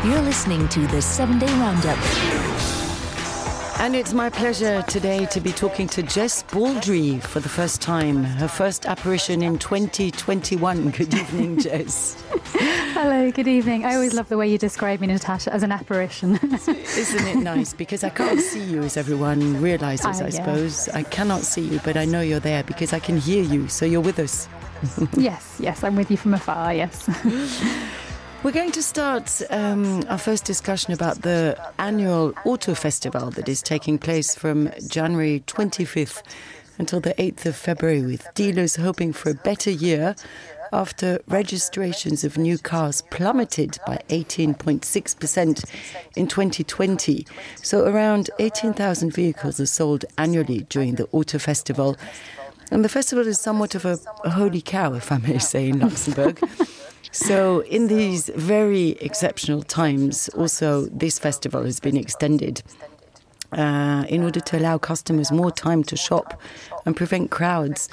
You're listening to the 7-Day Roundup. And it's my pleasure today to be talking to Jess Baldry for the first time. Her first apparition in 2021. Good evening, Jess. Hello, good evening. I always love the way you describe me, Natasha, as an apparition. Isn't it nice? Because I can't see you, as everyone realises, I suppose. I cannot see you, but I know you're there because I can hear you, so you're with us. Yes, I'm with you from afar, yes. We're going to start our first discussion about the annual Auto Festival that is taking place from January 25th until the 8th of February, with dealers hoping for a better year after registrations of new cars plummeted by 18.6% in 2020. So around 18,000 vehicles are sold annually during the Auto Festival. And the festival is somewhat of a holy cow, if I may say, in Luxembourg. So in these very exceptional times, also this festival has been extended in order to allow customers more time to shop and prevent crowds,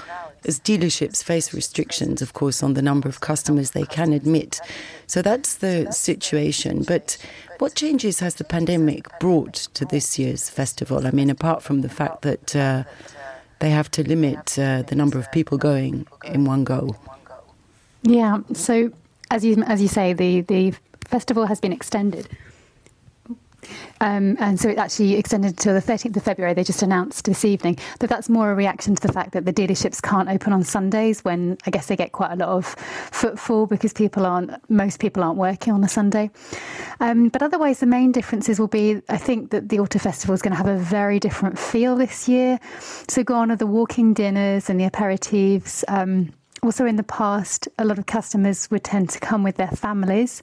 as dealerships face restrictions, of course, on the number of customers they can admit. So that's the situation. But what changes has the pandemic brought to this year's festival? I mean, apart from the fact that they have to limit the number of people going in one go. Yeah, so as you say, the festival has been extended. And so it actually extended to the 13th of February. They just announced this evening. But that's more a reaction to the fact that the dealerships can't open on Sundays, when I guess they get quite a lot of footfall because most people aren't working on a Sunday. But otherwise, the main differences will be, I think, that the Auto Festival is going to have a very different feel this year. So gone are the walking dinners and the aperitifs. Also, in the past, a lot of customers would tend to come with their families,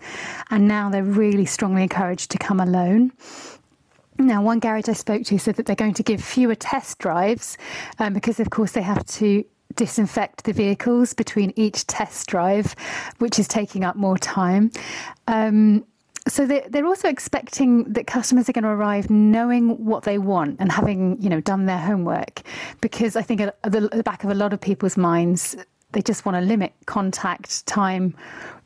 and now they're really strongly encouraged to come alone. Now, one garage I spoke to said that they're going to give fewer test drives because, of course, they have to disinfect the vehicles between each test drive, which is taking up more time. So they're also expecting that customers are going to arrive knowing what they want and having, done their homework, because I think at the back of a lot of people's minds, they just want to limit contact time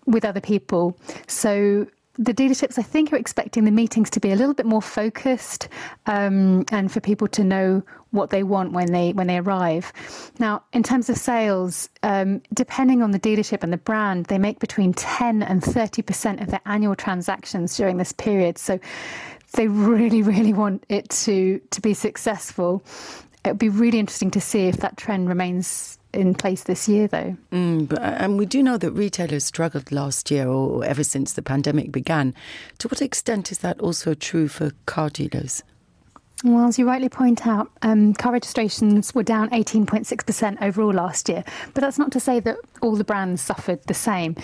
with other people. So the dealerships, I think, are expecting the meetings to be a little bit more focused and for people to know what they want when they arrive. Now, in terms of sales, depending on the dealership and the brand, they make between 10 and 30% of their annual transactions during this period. So they really, really want it to be successful. It would be really interesting to see if that trend remains in place this year, though. And we do know that retailers struggled last year, or ever since the pandemic began. To what extent is that also true for car dealers? Well, as you rightly point out, car registrations were down 18.6% overall last year. But that's not to say that all the brands suffered the same.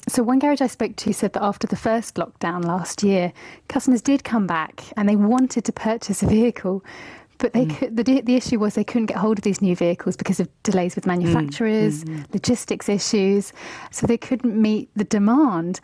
So one garage I spoke to said that after the first lockdown last year, customers did come back and they wanted to purchase a vehicle. But the issue was they couldn't get hold of these new vehicles because of delays with manufacturers, logistics issues. So they couldn't meet the demand.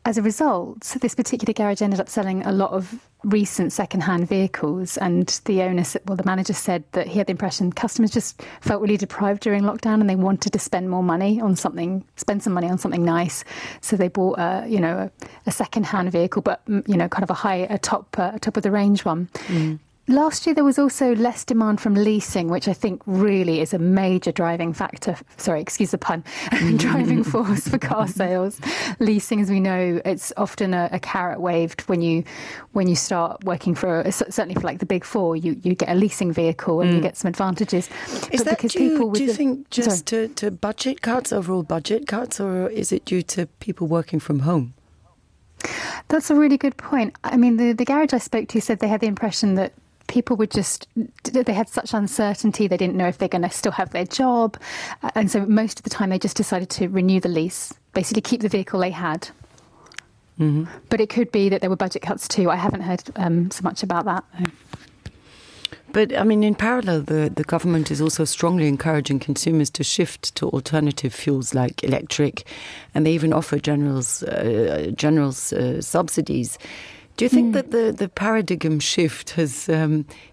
As a result, this particular garage ended up selling a lot of recent second-hand vehicles. And the manager said that he had the impression customers just felt really deprived during lockdown and they wanted to spend some money on something nice. So they bought a second-hand vehicle, but kind of a top of the range one. Last year, there was also less demand from leasing, which I think really is a major driving factor. Sorry, excuse the pun. Driving force for car sales. Leasing, as we know, it's often a carrot waved when you start working certainly for like the big four. You get a leasing vehicle and you get some advantages. Is that due, do you think, just to budget cuts, overall budget cuts, or is it due to people working from home? That's a really good point. I mean, the garage I spoke to said they had the impression that people they had such uncertainty, they didn't know if they're going to still have their job. And so most of the time they just decided to renew the lease, basically keep the vehicle they had. But it could be that there were budget cuts too. I haven't heard so much about that. But, I mean, in parallel, the government is also strongly encouraging consumers to shift to alternative fuels like electric, and they even offer generals subsidies. Do you think that the paradigm shift has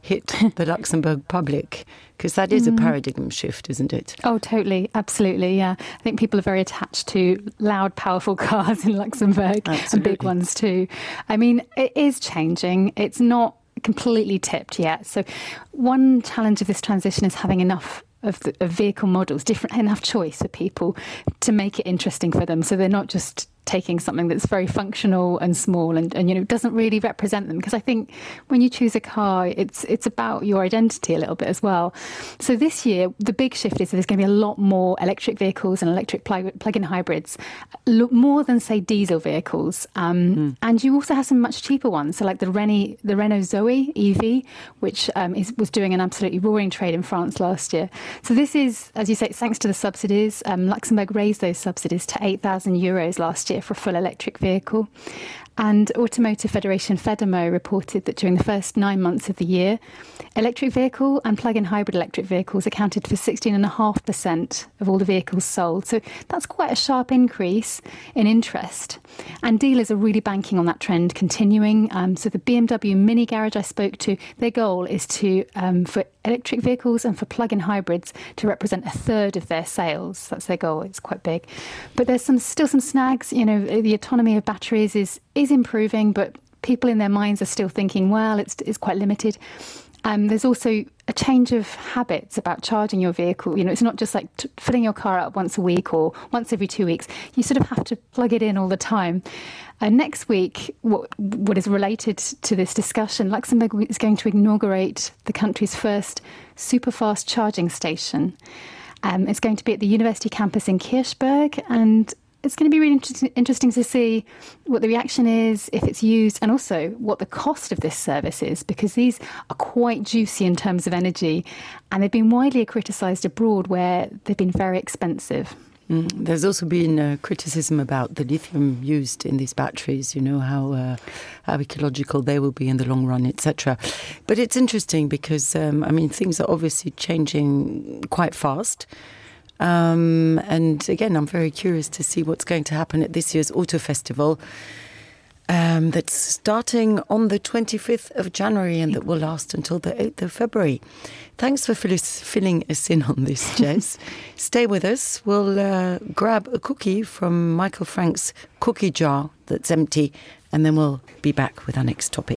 hit the Luxembourg public? Because that is a paradigm shift, isn't it? Oh, totally. Absolutely, yeah. I think people are very attached to loud, powerful cars in Luxembourg. Absolutely. And big ones too. I mean, it is changing. It's not completely tipped yet. So one challenge of this transition is having enough of vehicle models, enough choice for people to make it interesting for them. So they're not just taking something that's very functional and small and doesn't really represent them. Because I think when you choose a car, it's about your identity a little bit as well. So this year, the big shift is that there's going to be a lot more electric vehicles and electric plug-in hybrids, more than, say, diesel vehicles. And you also have some much cheaper ones. So like the Renault Zoe EV, which was doing an absolutely roaring trade in France last year. So this is, as you say, thanks to the subsidies. Luxembourg raised those subsidies to €8,000 last year for a full electric vehicle. And Automotive Federation Fedemo reported that during the first 9 months of the year, electric vehicle and plug-in hybrid electric vehicles accounted for 16.5% of all the vehicles sold. So that's quite a sharp increase in interest. And dealers are really banking on that trend continuing. So the BMW Mini Garage I spoke to, their goal is to for electric vehicles and for plug-in hybrids to represent a third of their sales. That's their goal. It's quite big. But there's still some snags. The autonomy of batteries is improving, but people in their minds are still thinking, well, it's quite limited. There's also a change of habits about charging your vehicle. It's not just like filling your car up once a week or once every 2 weeks. You sort of have to plug it in all the time. Next week, what is related to this discussion, Luxembourg is going to inaugurate the country's first super-fast charging station. It's going to be at the university campus in Kirchberg, and it's going to be really interesting to see what the reaction is, if it's used, and also what the cost of this service is, because these are quite juicy in terms of energy, and they've been widely criticised abroad where they've been very expensive. There's also been criticism about the lithium used in these batteries, how ecological they will be in the long run, etc. But it's interesting because, things are obviously changing quite fast. And again, I'm very curious to see what's going to happen at this year's Auto Festival that's starting on the 25th of January and that will last until the 8th of February. Thanks for filling us in on this, Jess. Stay with us. We'll grab a cookie from Michael Frank's cookie jar that's empty, and then we'll be back with our next topic.